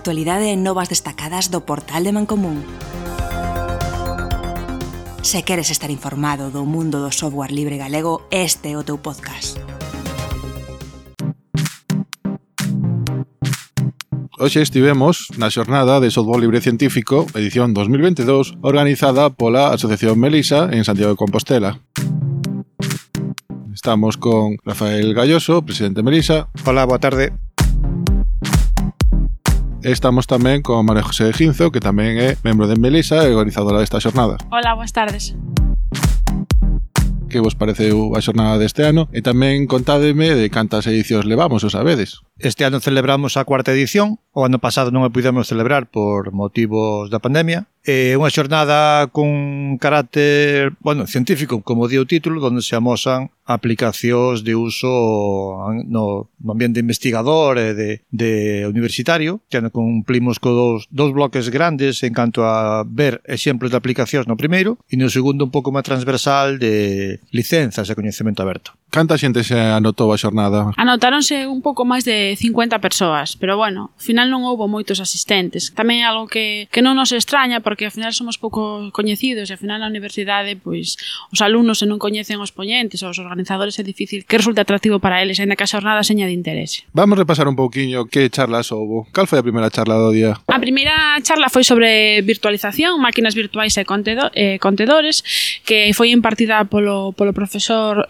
actualidade e novas destacadas do portal de Mancomún. Se queres estar informado do mundo do software libre galego, este é o teu podcast. Hoxe estivemos na xornada de Software Libre Científico, edición 2022, organizada pola Asociación Melisa en Santiago de Compostela. Estamos con Rafael Galloso, presidente de Melisa. Hola, boa tarde. Estamos tamén con María José Ginzo, que tamén é membro de Melisa e organizadora desta xornada. Hola, boas tardes. Que vos pareceu a xornada deste ano? E tamén contádeme de cantas edicións levamos, o sabedes? Este ano celebramos a cuarta edición. O ano pasado non a pudemos celebrar por motivos da pandemia. É unha xornada con carácter, científico, como di o título, onde se amosan aplicacións de uso no ambiente investigador e de universitario. Este ano cumplimos con dous bloques grandes en canto a ver exemplos de aplicacións no primeiro e no segundo un pouco máis transversal de licenzas e coñecemento aberto. Canta xente se anotou a xornada? Anotáronse un pouco máis de 50 persoas, pero bueno, ao final non houbo moitos asistentes. Tamén é algo que non nos extraña, porque ao final somos pouco coñecidos e ao final na universidade, pois, os alumnos se non coñecen os poñentes ou os organizadores é difícil que resulte atractivo para eles, ainda que a xornada seña de interese. Vamos repasar un pouquiño que charlas houbo. Cal foi a primeira charla do día? A primeira charla foi sobre virtualización, máquinas virtuais e contedores, que foi impartida polo profesor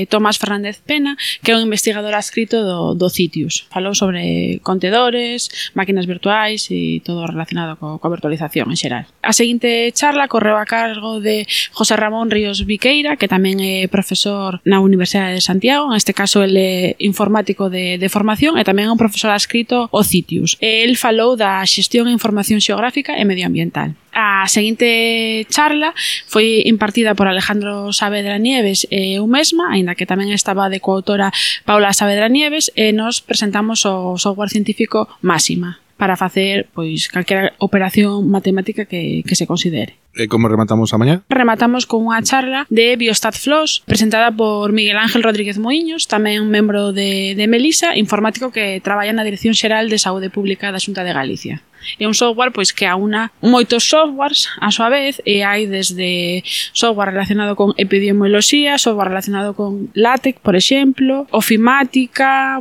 Tomás Fernández Pena, que é un investigador adscrito do CITIUS. Falou sobre contedores, máquinas virtuais e todo relacionado coa virtualización en xeral. A seguinte charla correu a cargo de José Ramón Ríos Viqueira, que tamén é profesor na Universidade de Santiago, en este caso ele é informático de formación e tamén é un profesor adscrito ao CITIUS. El falou da xestión e información xeográfica e medioambiental. A seguinte charla foi impartida por Alejandro Saavedra Nieves e eu mesma, aínda que tamén estaba de coautora Paula Saavedra Nieves, e nos presentamos o software científico Máxima para facer pois calquera operación matemática que se considere. E como rematamos a mañá? Rematamos con unha charla de BiostatFlows presentada por Miguel Ángel Rodríguez Moiños, tamén membro de Melisa, informático que traballa na Dirección Xeral de Saúde Pública da Xunta de Galicia. É un software pois que aúna moitos softwares a súa vez, e hai desde software relacionado con epidemioloxía, software relacionado con LaTeX, por exemplo, ofimática,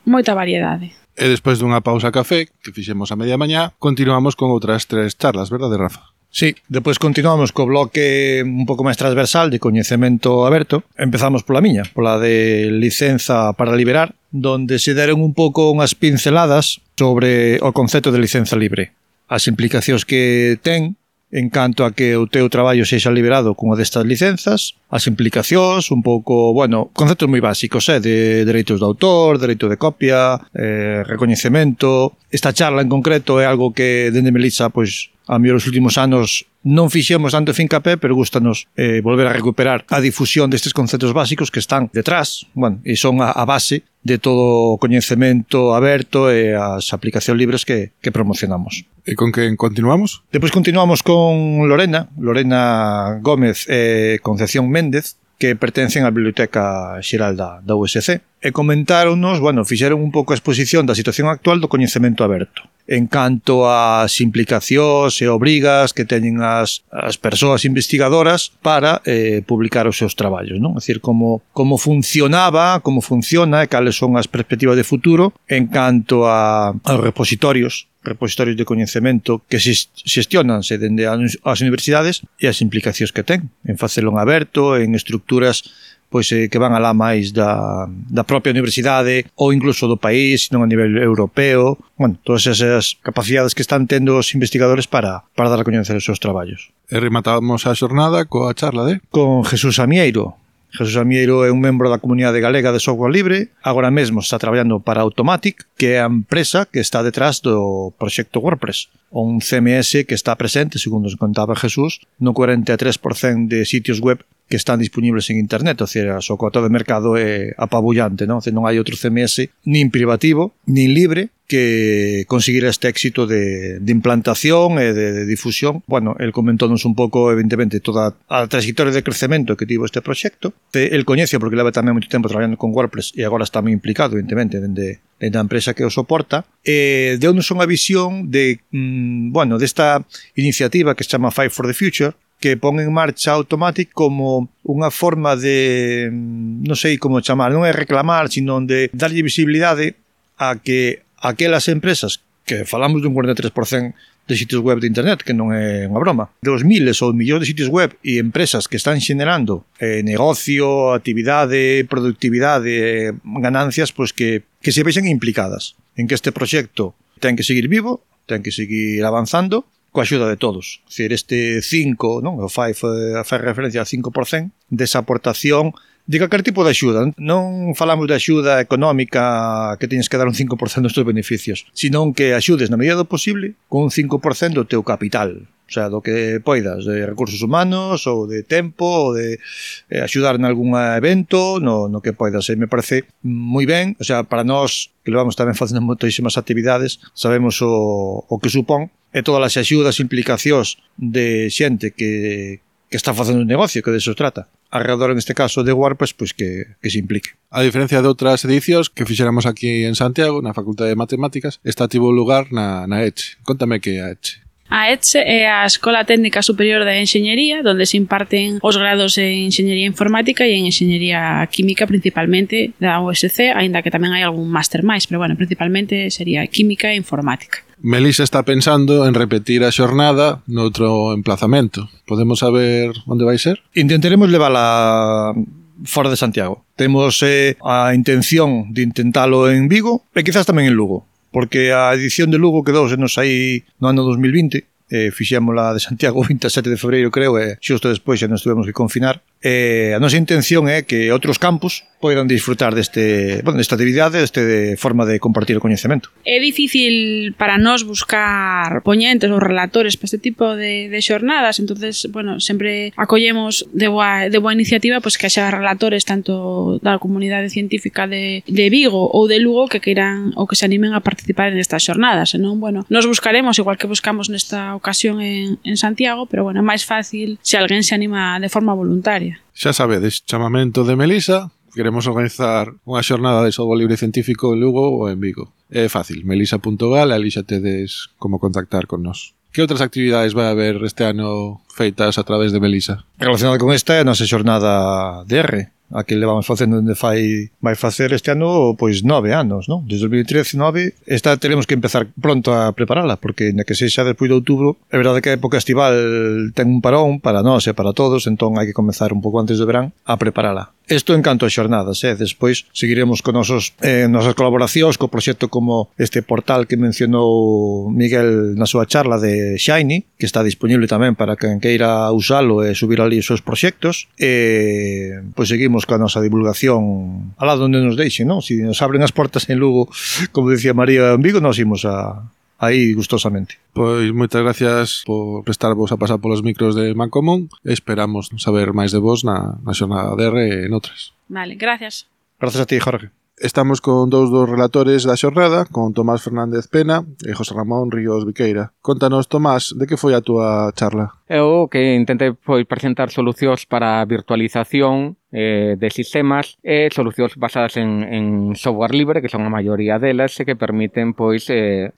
moita variedade. E despois dunha pausa café, que fixemos a media mañá, continuamos con outras 3 charlas, verdade, Rafa? Sí, depois continuamos co bloque un pouco máis transversal de coñecemento aberto. Empezamos pola miña, pola de licenza para liberar, donde se deron un pouco unhas pinceladas sobre o concepto de licenza libre, as implicacións que ten en canto a que o teu traballo sexa liberado cunha destas licenzas, as implicacións, un pouco, conceptos moi básicos, de dereitos de autor, dereito de copia, recoñecemento. Esta charla en concreto é algo que dende Melisa, pois, a mellor os últimos anos non fixemos tanto fincapé, pero gustanos volver a recuperar a difusión destes conceptos básicos que están detrás, e son a base de todo o coñecemento aberto e as aplicacións libres que promocionamos. E con que continuamos? Depois continuamos con Lorena Gómez e Concepción Méndez, que pertencen á Biblioteca Xeral da USC, e comentáronos, fixeron un pouco a exposición da situación actual do coñecemento aberto, en canto ás implicacións e obrigas que teñen as persoas investigadoras para publicar os seus traballos, non? É dicir, como funciona e cales son as perspectivas de futuro en canto aos repositorios de coñecemento que xestionanse dende as universidades e as implicacións que ten en facelo en aberto, en estructuras que van alá máis da propia universidade ou incluso do país, non a nivel europeo. Todas esas capacidades que están tendo os investigadores para dar a coñecer os seus traballos. E rematamos a xornada coa charla con Jesús Amieiro. Jesús Amieiro é un membro da comunidade galega de software libre, agora mesmo está traballando para Automatic, que é a empresa que está detrás do proxecto WordPress, un CMS que está presente, segundo nos contaba Jesús, no 43% de sitios web que están disponibles en internet, ou seja, o cota de mercado é apabullante, non? Non hai outro CMS nin privativo, nin libre que conseguir este éxito de implantación e de difusión. Bueno, el comentónos un pouco, evidentemente, toda a trayectoria de crecemento que tivo este proxecto. El coñece porque leva tamén moito tempo traballando con WordPress e agora está moi implicado, evidentemente, dende a empresa que o soporta. Deu-nos unha visión de, bueno, desta iniciativa que se chama Five for the Future, que pon en marcha Automatic como unha forma de, non sei como chamar, non é reclamar, sino de darlle visibilidade a que aquelas empresas que falamos dun 43% de sitios web de internet, que non é unha broma, dos miles ou millóns de sitios web e empresas que están xenerando negocio, actividade, productividade, ganancias, pois que se vexen implicadas en que este proxecto ten que seguir vivo, ten que seguir avanzando, coa axuda de todos. É dicir, este 5, non? O 5 fai referencia ao 5% desa aportación de calquer tipo de axuda. Non falamos de axuda económica que teñes que dar un 5% dos teus beneficios, senón que axudes na medida do posible con un 5% do teu capital. O sea, do que poidas, de recursos humanos ou de tempo ou de axudar en algún evento, no que poidas. E me parece moi ben, o sea, para nós que levamos tamén facendo moitísimas actividades, sabemos o que supón e todas as axudas e implicacións de xente que está facendo un negocio, que de eso trata. Alrededor, en este caso, de WordPress, pois que se implique. A diferencia de outras edicións que fixéramos aquí en Santiago, na Facultade de Matemáticas, esta tivo lugar na ECHE. Contame que é a ECHE. A ECHE é a Escola Técnica Superior de Enxeñería, donde se imparten os grados en Enxeñería Informática e en Enxeñería Química, principalmente da USC, aínda que tamén hai algún máster máis, pero bueno, principalmente sería Química e Informática. Melisa está pensando en repetir a xornada noutro emplazamento. Podemos saber onde vai ser? Intentaremos levala fora de Santiago. Temos a intención de intentalo en Vigo e quizás tamén en Lugo, porque a edición de Lugo quedouse-nos aí no ano 2020, fixémola de Santiago o 27 de febreiro, creo, e xusto despois xa nos tuvemos que confinar. A nosa intención é que outros campus poidan disfrutar desta actividade, desta forma de compartir o coñecemento. É difícil para nós buscar poñentes ou relatores para este tipo de xornadas, entonces, bueno, sempre acollemos de boa iniciativa pois que xa relatores tanto da comunidade científica de Vigo ou de Lugo que queiran ou que se animen a participar en estas xornadas, senón, bueno, nos buscaremos igual que buscamos nesta ocasión en Santiago, pero, bueno, é máis fácil se alguén se anima de forma voluntaria. Xa sabedes, chamamento de Melisa. Queremos organizar unha xornada de software libre científico en Lugo ou en Vigo. É fácil, melisa.gal, ali xa tedes como contactar con nós. Que outras actividades vai haber este ano feitas a través de Melisa? Relacionada con esta é a nosa xornada de R, a que levamos facendo onde vai facer este ano pois 9 anos, non? Desde 2013-9, esta teremos que empezar pronto a preparala, porque na que sexa despois de outubro, é verdade que a época estival ten un parón para nós e para todos, entón hai que comezar un pouco antes do verán a preparala. Isto en canto a xornadas, despois seguiremos con nosas colaboracións co proxecto como este portal que mencionou Miguel na súa charla de Shiny, que está disponible tamén para quen queira usalo e subir ali os seus proxectos, e pois seguimos coa nosa divulgación alá onde nos deixen, non? Si nos abren as portas en Lugo, como decía María en Vigo, nos imos aí gustosamente. Pois moitas gracias por prestarvos a pasar polos micros de Mancomún e esperamos saber máis de vos na xornada de R e noutras. Vale, gracias. Gracias a ti, Jorge. Estamos con dous dos relatores da xornada, con Tomás Fernández Pena e José Ramón Ríos Viqueira. Contanos, Tomás, de que foi a túa charla? Eu que intentei presentar solucións para a virtualización de sistemas e solucións basadas en software libre, que son a maioría delas, e que permiten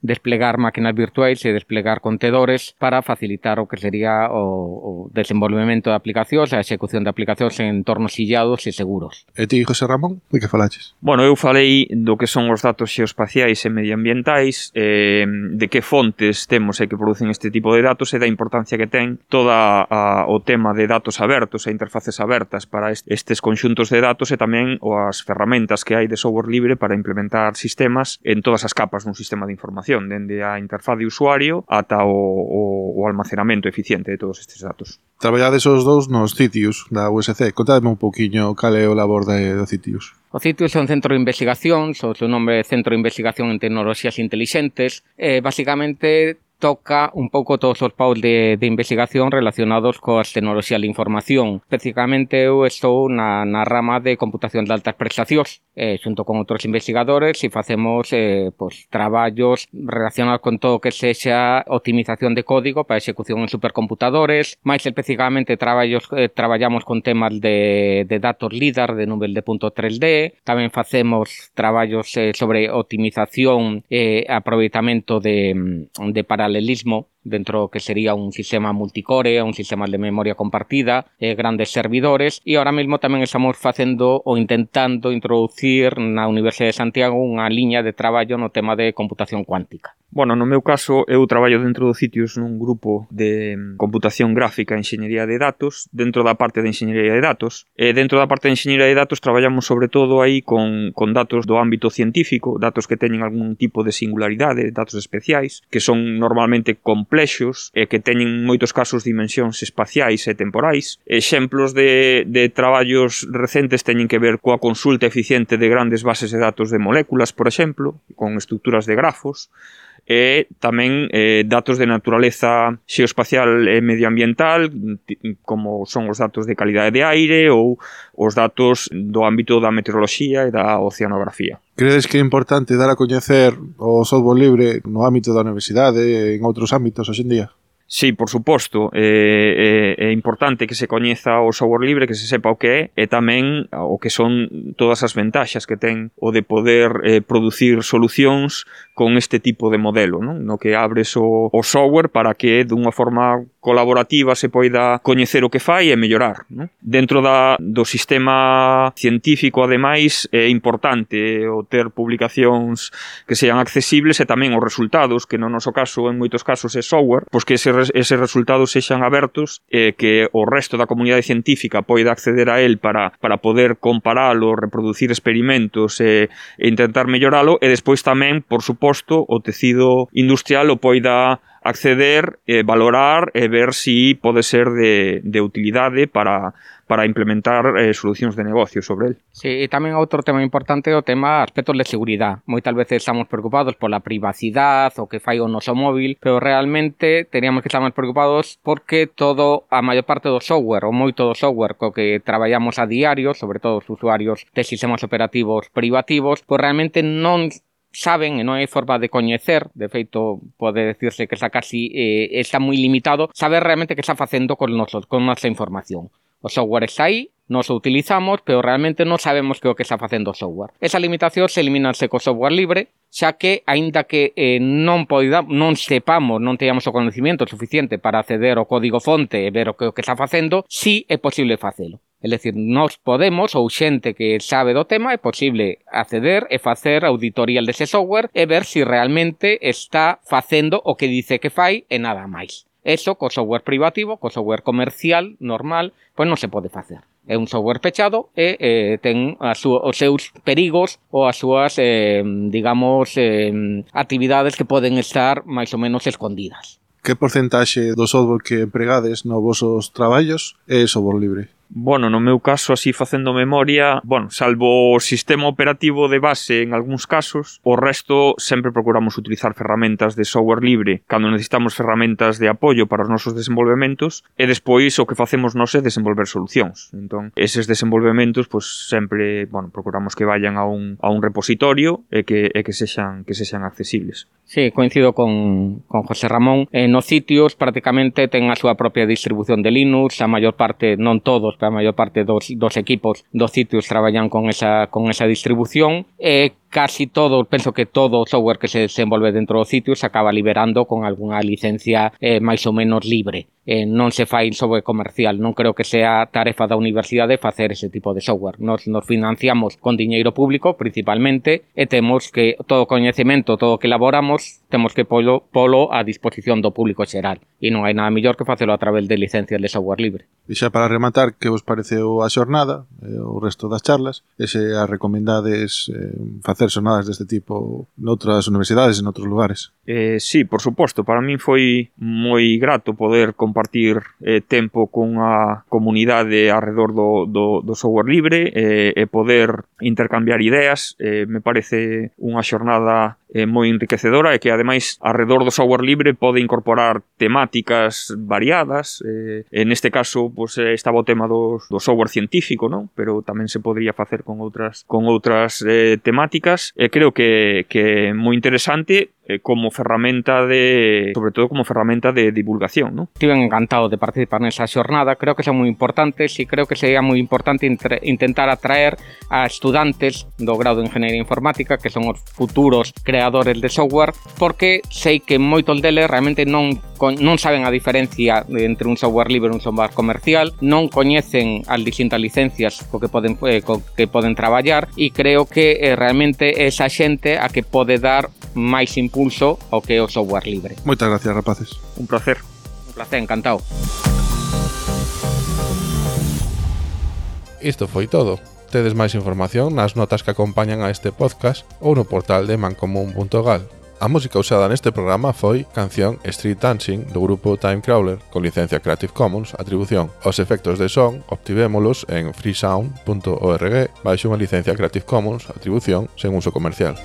desplegar máquinas virtuais e desplegar contedores para facilitar o que sería o desenvolvemento de aplicacións, a execución de aplicacións en entornos illados e seguros. E ti, José Ramón, de que falaches? Bueno, eu falei do que son os datos xeoespaciais e medioambientais, de que fontes temos e que producen este tipo de datos e da importancia que ten toda o tema de datos abertos e interfaces abertas para estes conxuntos de datos e tamén as ferramentas que hai de software libre para implementar sistemas en todas as capas dun sistema de información, dende a interfaz de usuario ata o almacenamento eficiente de todos estes datos. Traballades os dous nos Citius da USC. Contadme un pouquiño cal é o labor do Citius. O Citius é un centro de investigación, o seu nome é Centro de Investigación en Tecnoloxías Intelixentes, e basicamente toca un pouco todos os paus de investigación relacionados coas tecnoloxías de información. Especificamente eu estou na rama de computación de altas prestacións, xunto con outros investigadores, e facemos traballos relacionados con todo o que sexa optimización de código para execución en supercomputadores. Mais especificamente traballamos con temas de datos LIDAR de nube de punto 3D. Tamén facemos traballos sobre optimización e aproveitamento de paralelismo dentro que sería un sistema multicore, un sistema de memoria compartida, grandes servidores, e ahora mesmo tamén estamos facendo ou intentando introducir na Universidade de Santiago unha liña de traballo no tema de computación cuántica. Bueno, no meu caso, eu traballo dentro do Citius nun grupo de computación gráfica e enxeñería de datos, dentro da parte de enxeñería de datos. E dentro da parte de enxeñería de datos traballamos sobre todo aí con datos do ámbito científico, datos que teñen algún tipo de singularidade, datos especiais, que son normalmente complexos e que teñen moitos casos dimensións espaciais e temporais. Exemplos de traballos recentes teñen que ver coa consulta eficiente de grandes bases de datos de moléculas, por exemplo, con estruturas de grafos, e tamén datos de naturaleza xeoespacial e medioambiental, como son os datos de calidade de aire ou os datos do ámbito da meteoroloxía e da oceanografía. Credes que é importante dar a coñecer o software libre no ámbito da universidade e en outros ámbitos hoxe en día? Sí, por suposto, é importante que se coñeza o software libre, que se sepa o que é, e tamén o que son todas as ventaxas que ten o de poder producir solucións con este tipo de modelo, non? No que abres o software para que dunha forma colaborativa se poida coñecer o que fai e mellorar, non? Dentro do sistema científico, ademais, é importante o ter publicacións que sean accesibles e tamén os resultados, que no noso caso, en moitos casos, é software, pois que eses resultados sexan abertos e que o resto da comunidade científica poida acceder a él para poder comparalo, reproducir experimentos e intentar melloralo, e despois tamén, por suposto, o tecido industrial o poida acceder, valorar e ver si pode ser de utilidade para implementar solucións de negocio sobre el. Sí, e tamén outro tema importante é o tema aspectos de seguridade. Moitas veces estamos preocupados pola privacidade, o que fai o noso móvil, pero realmente teríamos que estar máis preocupados porque a maior parte do software, ou moito do software co que traballamos a diario, sobre todo os usuarios de sistemas operativos privativos, pois realmente non saben e non hai forma de coñecer, de feito pode decirse que está casi está moi limitado, saber realmente que está facendo con nosa información. O software está aí, nos o utilizamos, pero realmente non sabemos que o que está facendo o software. Esa limitación se eliminanse co software libre, xa que, aínda que non sepamos, non teñamos o conhecimento suficiente para acceder ao código fonte e ver o que está facendo, sí é posible facelo. É dicir, nós podemos, ou xente que sabe do tema, é posible acceder e facer auditorial dese software e ver se realmente está facendo o que dice que fai e nada máis. Eso, co software privativo, co software comercial, normal, pois non se pode facer. É un software pechado e ten os seus perigos ou as súas, actividades que poden estar máis ou menos escondidas. Que porcentaxe do software que empregades nos vosos traballos é software libre? Bueno, no meu caso, así facendo memoria, salvo o sistema operativo de base en algúns casos, o resto sempre procuramos utilizar ferramentas de software libre cando necesitamos ferramentas de apoio para os nosos desenvolvementos e despois o que facemos nós é desenvolver solucións. Entón, eses desenvolvementos, sempre, procuramos que vayan a un repositorio e que sexan accesibles. Sí, coincido con José Ramón. Nos sitios prácticamente ten a súa propia distribución de Linux, a maior parte, non todos, pero a maior parte dos equipos dos sitios traballan con esa distribución e casi todo, penso que todo o software que se desenvolve dentro dos sitios se acaba liberando con algunha licencia máis ou menos libre. Non se fai software comercial, non creo que sea tarefa da universidade facer ese tipo de software. Nos financiamos con diñeiro público principalmente e temos que todo o coñecemento, todo o que elaboramos, temos que polo a disposición do público xeral e non hai nada mellor que facelo a través de licencias de software libre. E xa para rematar, que vos pareceu a xornada, o resto das charlas, e se a recomendades facer xornadas deste tipo noutras universidades e noutros lugares? Sí, por suposto, para min foi moi grato poder compartir tempo cunha comunidade arredor do software libre e poder intercambiar ideas. Me parece unha xornada moi enriquecedora e que ademais arredor do software libre pode incorporar temáticas variadas. En este caso pues, estaba o tema do software científico, non? Pero tamén se podría facer con outras temáticas. Creo que é moi interesante como ferramenta sobre todo como ferramenta de divulgación, ¿no? Estive encantado de participar nesa xornada, creo que son moi importantes e creo que sería moi importante intentar atraer a estudantes do grado de Ingeniería Informática, que son os futuros creadores de software, porque sei que moitos deles realmente non saben a diferencia entre un software libre e un software comercial, non coñecen as distintas licencias co que poden traballar, e creo que realmente esa xente a que pode dar máis impulso ao que é o software libre. Moitas gracias, rapaces. Un placer. Un placer, encantado. Isto foi todo. Tedes máis información nas notas que acompañan a este podcast ou no portal de mancomun.gal. A música usada neste programa foi canción Street Dancing do grupo Timecrawler con licencia Creative Commons Atribución. Os efectos de son obtivémolos en freesound.org baixo unha licencia Creative Commons Atribución sen uso comercial.